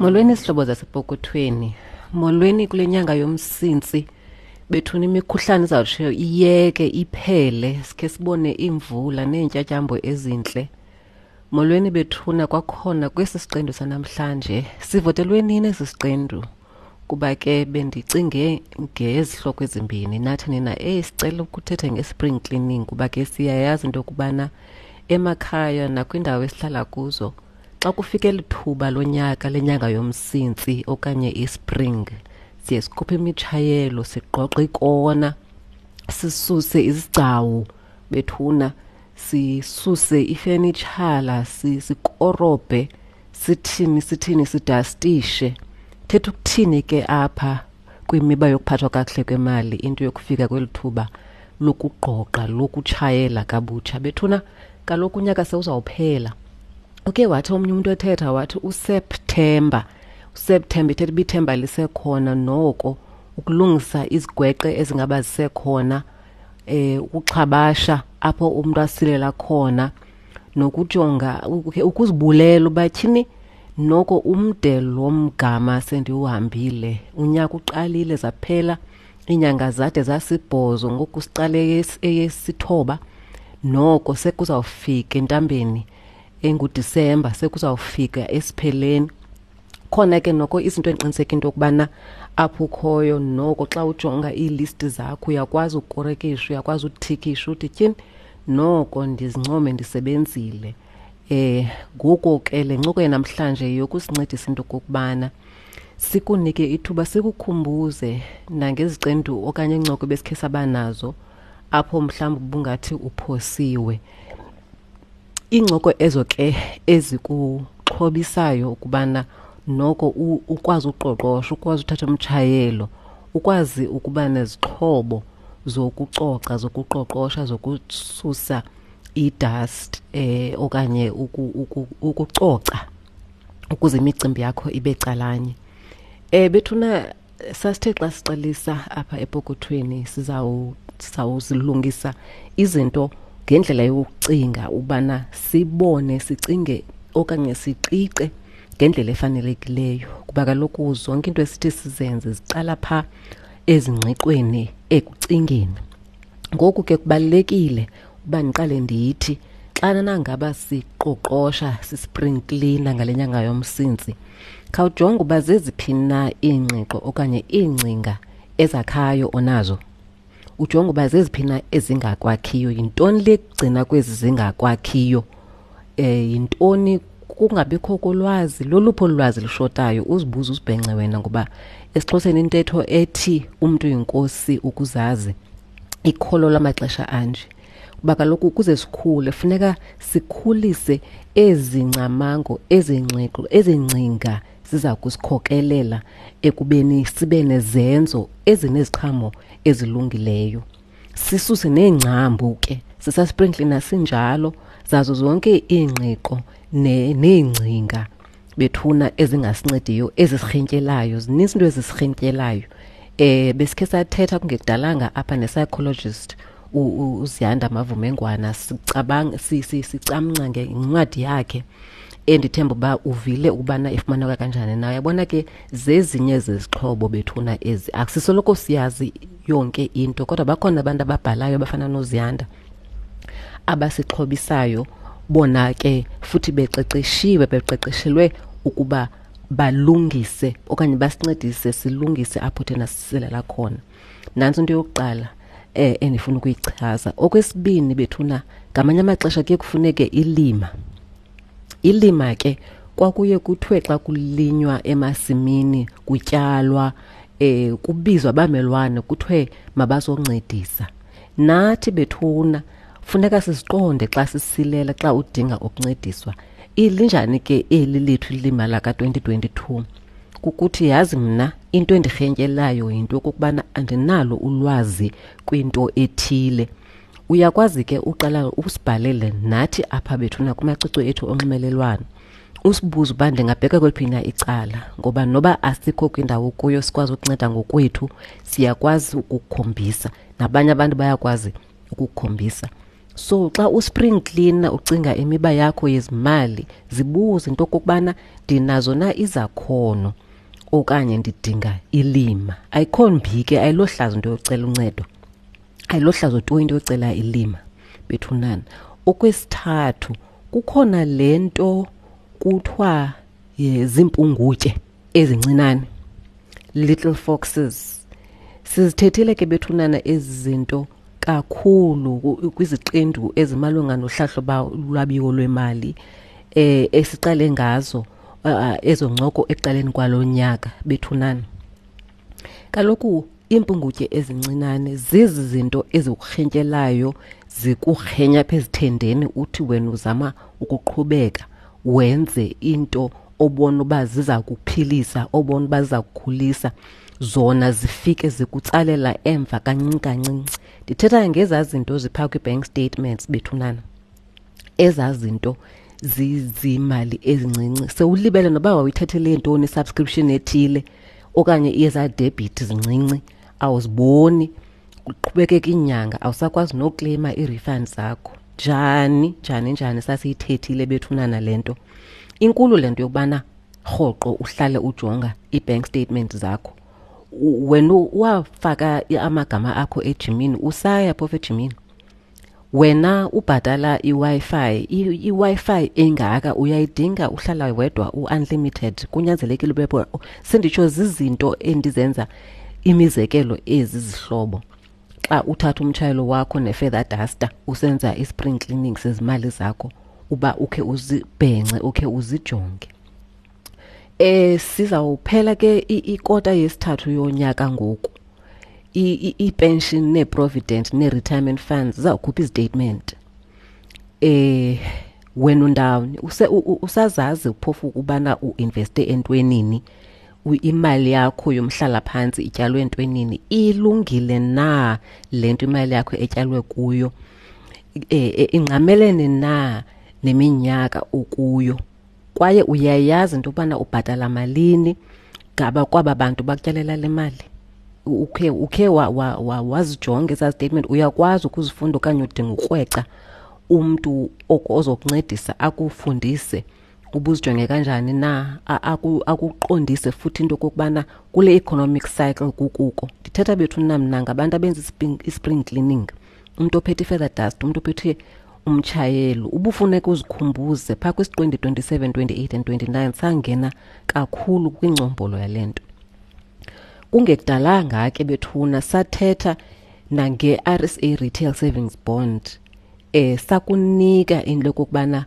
Molweni zihlobo zasepokothweni. Molweni kule nyanga yoMsintsi. Bethuna imikhuhlane izawutsho iyeke iphele sikhe sibone iimvula neentyatyambo ezintle. Molweni bethuna kwakhona kwesi siqendu sanamhlanje. Sivotelwe nini esi siqendu? Kuba ke bendicinge ngezihloko ezimbini nathi nina eyi sicela ukuthetha nge-spring cleaning kuba ke siyayazi into yokubana emakhaya nakwiindawo esihlala kuzo xa kufike eli thuba lonyaka lenyanga yoMsintsi okanye ispring siye sikhuphe imitshayelo, sigqogqe ikona, sisuse izigcawu bethuna, sisuse ifenitshala, sikorobhe, sithini sithini sidastishe. Thetha ukuthini ke apha kwimiba yokuphathwa kakuhle kwemali into yokufika kweli thuba lokugqogqa, lokutshayela kabutsha? Bethuna kaloku unyaka sewuzawuphela. Uke wathi omnye umntu ethetha wathi uSeptemba, uSeptemba ithetha uba ithemba lisekhona noko ukulungisa izigweqe ezingaba zisekhona, ukuxhabasha apho umntu asilela khona, nokujonga ukuzibulela uba tyhini noko umde lo mgama sendiwuhambile. Unyaka uqalile, zaphela iinyanga zade zasibhozo, ngoku siqale eyesithoba, noko sekuzawufika entambeni enguDisemba, sekuzawufika esipheleni. Khona ke noko izinto endiqiniseka into yokubana apho ukhoyo noko xa ujonga iilisti zakho uyakwazi ukukorekisha, uyakwazi uthikisha uthi tyhini noko ndizincome ndisebenzile. Ngoku ke le ncoko yanamhlanje yokusincedisa into okokubana sikunike ithuba, sikukhumbuze nangezicendu okanye iincoko ebesikhe saba nazo apho mhlawumbi ubungathi uphosiwe. Iincoko ezo ke ezikuxhobisayo ukubana noko ukwazi uqoqosho, ukwazi uthatha umtshayelo, ukwazi ukuba nezixhobo zokucoca, zokuqoqosha, zokususa idust okanye ukucoca ukuze imicimbi yakho ibe calanye. Bethuna sasithe xa siqalisa apha epokothweni sizawuzilungisa izinto ngendlela yokucinga ubana sibone, sicinge okanye siqiqe ngendlela efanelekileyo, kuba kaloku zonke into esithi sizenze ziqala phaa ezingqiqweni, ekucingeni. Ngoku ke kubalulekile uba ndiqale ndithi xana nangaba siqoqosha, sispring cleaner ngale nyanga yoMsintsi, khawujonge uba zeziphi na iingqiqo okanye iingcinga ezakhayo onazo. Ujonge uba zeziphi na ezingakwakhiyo, yintoni le kugcina kwezi zingakwakhiyo, yintoni kungabikho kolwazi, loluphi olu lwazi lushotayo, uzibuze uzibhence wena, ngoba esiXhoseni intetho ethi umntu yinkosi ukuzazi ikholo lamaxesha anje. Kuba kaloku ukuze sikhule funeka sikhulise ezi ngcamango, ezi ngqiqo, ezi ngcinga ziza kusikhokelela ekubeni sibe nezenzo ezineziqhamo ezilungileyo. Sisuse neengcambu ke, sisaspring cleaner sinjalo, zazo zonke iingqiqo neengcinga bethuna ezingasincediyo, ezisirhintyelayo. Zininzi into ezisirhintyelayo. Besikhe sathetha kungekudalanga apha ne-psychologist uZiyanda Mavumengwana, sicamnca ngencwadi yakhe endithemba uba uvile ukubana ifumaneka kanjani na. Uyabona ke zezinye zezixhobo bethuna ezi, akusisoloko siyazi yonke into, kodwa bakhona abantu ababhalayo abafana noZiyanda abasixhobisayo, bona ke futhi beqeqeshiwe, beqeqeshelwe ukuba balungise okanye basincedise silungise apho thina sisilela khona. Nantso into yokuqala endifuna ukuyichaza. Okwesibini bethuna, ngamanye amaxesha kuye kufuneke ilima. Ilima ke kwakuye kuthiwe xa kulinywa emasimini, kutyalwa, kubizwa abamelwane kuthiwe mabazoncedisa. Nathi bethuna funeka siziqonde xa sisilela, xa udinga ukuncediswa. Ilinjani ke eli lethu ilima laka-2022? Kukuthi yazi mna into endirhentyelayo yinto yokokubana andinalo ulwazi kwinto ethile. Uyakwazi ke uqala usibhalele nathi apha bethuna kumacwecwe ethu onxibelelwano, usibuze uba ndingabheka kweliphi na icala, ngoba noba asikho kwindawo kuyo sikwazi ukunceda ngokwethu, siyakwazi ukukukhombisa, nabanye abantu bayakwazi ukukukhombisa. So xa uspring cleaner ucinga imiba yakho yezimali, zibuze into okokubana ndinazo na izakhono okanye ndidinga ilima. Ayikho mbi ke, ayilohlazo into yocela uncedo, ayilohlazo tu into yocela ilima bethunana. Okwesithathu, kukhona le nto kuthiwa ziimpungutye ezincinane, little foxes. Sizithethile ke bethunana ezi zinto kakhulu kwiziqendu ezimalunga nohlahlo lwabiwo lwemali esiqale ngazo ezo ncoko ekuqaleni kwalo nyaka bethunana. Kaloku iimpungutye ezincinane zizi zinto ezikurhentyelayo, zikurhenya apha ezithendeni, uthi wena uzama ukuqhubeka wenze into obona uba ziza kuphilisa, obona uba ziza kukhulisa, zona zifike zikutsalela emva kancinci kancinci. Ndithetha ngezaa zinto ziphaa kwii-bank statements bethunana, ezaa zinto zizimali ezincinci sewulibele noba wawuyithathele ntoni i-subscription ethile okanye ezaa debit zincinci awuziboni, kuqhubekeka iinyanga awusakwazi nokleyima ii-refund zakho. Njani, njani, njani sasiyithethile bethunana le nto. Inkulu le nto yokubana rhoqo uhlale ujonga ii-bank statement zakho. Wena wafaka amagama akho ejimini, usaya phofu ejimini. Wena ubhatala iWi-Fi, iWi-Fi engaka uyayidinga, uhlala wedwa u-unlimited, kunyanzelekile ube pho. Senditsho zizinto endizenza imizekelo ezi zihlobo. Xa uthatha umtshayelo wakho ne-feather duster usenza i-spring cleaning sezimali zakho, uba ukhe uzibhence, ukhe uzijonge. Sizawuphela ke ikota yesithathu yonyaka ngoku. I-pension nee-provident nee-retirement funds zizawukhupha izitatement. Wena undawoni? Usazazi phofu ukubana uinveste entwenini? Imali yakho yomhlalaphantsi ityalwe entwenini? Ilungile na le nto imali yakho etyalwe kuyo? Ingqamelene na neminyaka okuyo? Kwaye uyayazi into yokubana ubhatala malini ngaba kwaba bantu bakutyalela le mali? Ukhe wazijonga ezaa statement? Uyakwazi ukuzifunda okanye udinga ukrweca umntu ozokuncedisa akufundise ubuzijonge kanjani na, akuqondise futhi into okokubana kule economic cycle kukuko. Ndithetha bethu mna ngabantu abenza i-spring cleaning, umntu ophethe i-feather dust, umntu ophethe umtshayelo. Ubufuneka uzikhumbuze phaa kwisiqendu 27, 28 and 29, sangena kakhulu kwingcombolo yale nto. Kungekudalanga ke bethuna sathetha nange-RSA Retail Savings Bond. Sakunika into yokokubana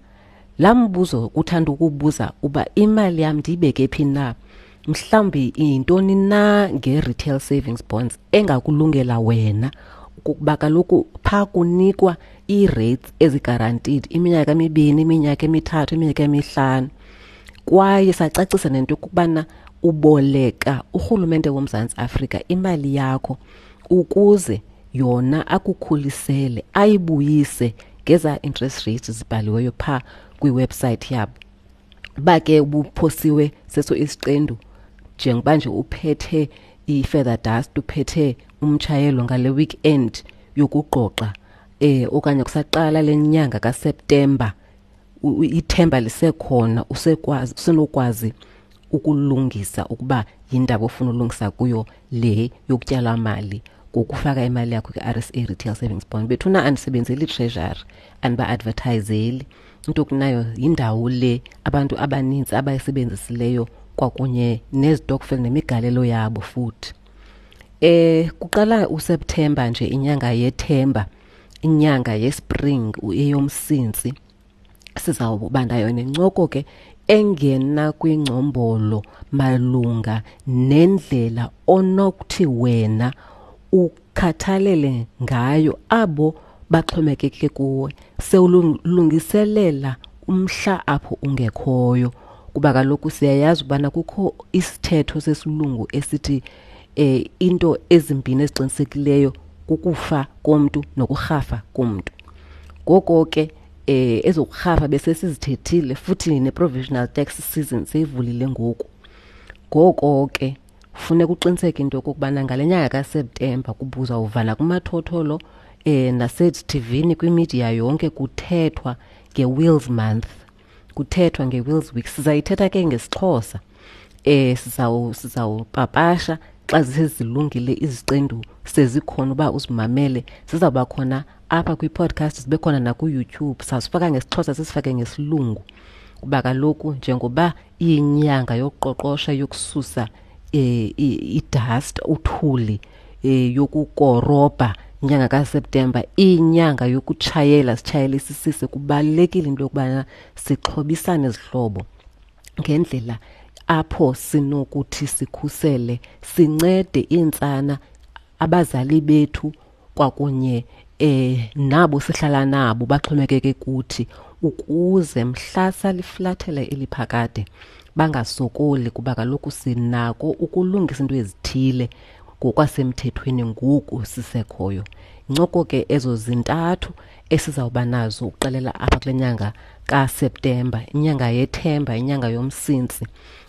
laa mbuzo uthanda ukubuza uba imali yam ndiyibeke phi na, mhlawumbi yintoni na nge-retail savings bonds engakulungela wena, kukuba kaloku phaa kunikwa ii-rates ezi-guaranteed iminyaka emibini, iminyaka emithathu, iminyaka emihlanu. Kwaye sacacisa nento yokubana uboleka urhulumente woMzantsi Afrika imali yakho ukuze yona akukhulisele, ayibuyise ngeza interest rates zibhaliweyo phaa kwiwebsite yabo. Uba ke ubuphosiwe seso isiqendu, njengoba nje uphethe i-feather dust, uphethe umtshayelo ngale weekend yokugqoxa, okanye kusaqala le nyanga kaSeptemba, ithemba lisekhona, usenokwazi ukulungisa ukuba yindaba ofuna ulungisa kuyo le yokutyala mali ngokufaka imali yakho kwi-RSA Retail Savings Bond. Bethuna andisebenzeli Treasury, andiba-advertiseli. Into kunayo yindawo le abantu abanintsi abayisebenzisileyo kwakunye nezitokfela nemigalelo yabo futhi. Kuqala uSeptemba nje, inyanga yethemba, inyanga yespring, eyomsintsi. Sizawuba nayo nencoko ke engena kwingcombolo malunga nendlela onokuthi wena ukhathalele ngayo abo baxhomekeke kuwe, sewulungiselela umhla apho ungekhoyo. Kuba kaloku siyayazi ubana kukho isithetho sesilungu esithi into ezimbini eziqinisekileyo kukufa komntu nokurhafa komntu. Ngoko ke ezokurhafa bese sizithethile futhi ne-provisional tax season seyivulile ngoku. Ngoko ke funeka uqiniseke into yokokubana ngale nyanga kaSeptemba kubuzawuvala kumathotholo Nasezithivini kwimidiya yonke kuthethwa nge-Wills Month, kuthethwa nge-Wills Week. Sizayithetha ke ngesiXhosa. Sizawupapasha xa zisezilungile iziqendu sezikhona uba uzimamele. Zizawuba khona apha kwi-podcast, zibe khona naku-YouTube. Sazifaka ngesiXhosa, sisifake ngesilungu, kuba kaloku njengoba iyinyanga yokuqoqosha, yokususa i-dust, uthuli, yokukorobha, inyanga kaSeptemba, inyanga yokutshayela, sitshayele isisise. Kubalulekile into yokubana sixhobisane zihlobo ngendlela apho sinokuthi sikhusele, sincede iintsana, abazali bethu kwakunye nabo sihlala nabo baxhomekeke kuthi, ukuze mhla saliflathela eliphakade bangasokoli, kuba kaloku sinako ukulungisa into ezithile ngokwasemthethweni ngoku sisekhoyo. Incoko ke ezo zintathu esizawuba nazo ukuxelela apha kule nyanga kaSeptemba, inyanga yethemba, inyanga yoMsintsi,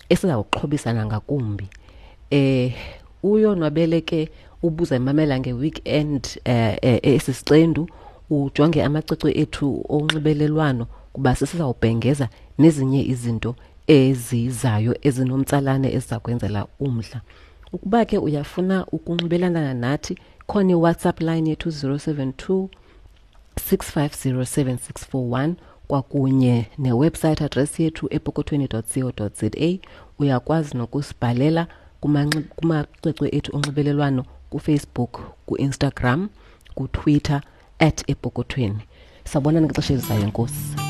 esizawuxhobisana ngakumbi. Uyonwabele ke ubuza imamela nge-weekend esi siqendu, ujonge amacwecwe ethu onxibelelwano, kuba sisizawubhengeza nezinye izinto ezizayo ezinomtsalane eziza kwenzela umdla. Ukuba ke uyafuna ukunxibelelana nathi, khona iWhatsApp line yethu 072 650 7641 kwakunye newebsite address yethu epokothweni.co.za. Uyakwazi nokusibhalela kumacwecwe ethu onxibelelwano kuFacebook, kuInstagram, kuTwitter @epokothweni. Sawubonana ngexesha elizayo, enkosi.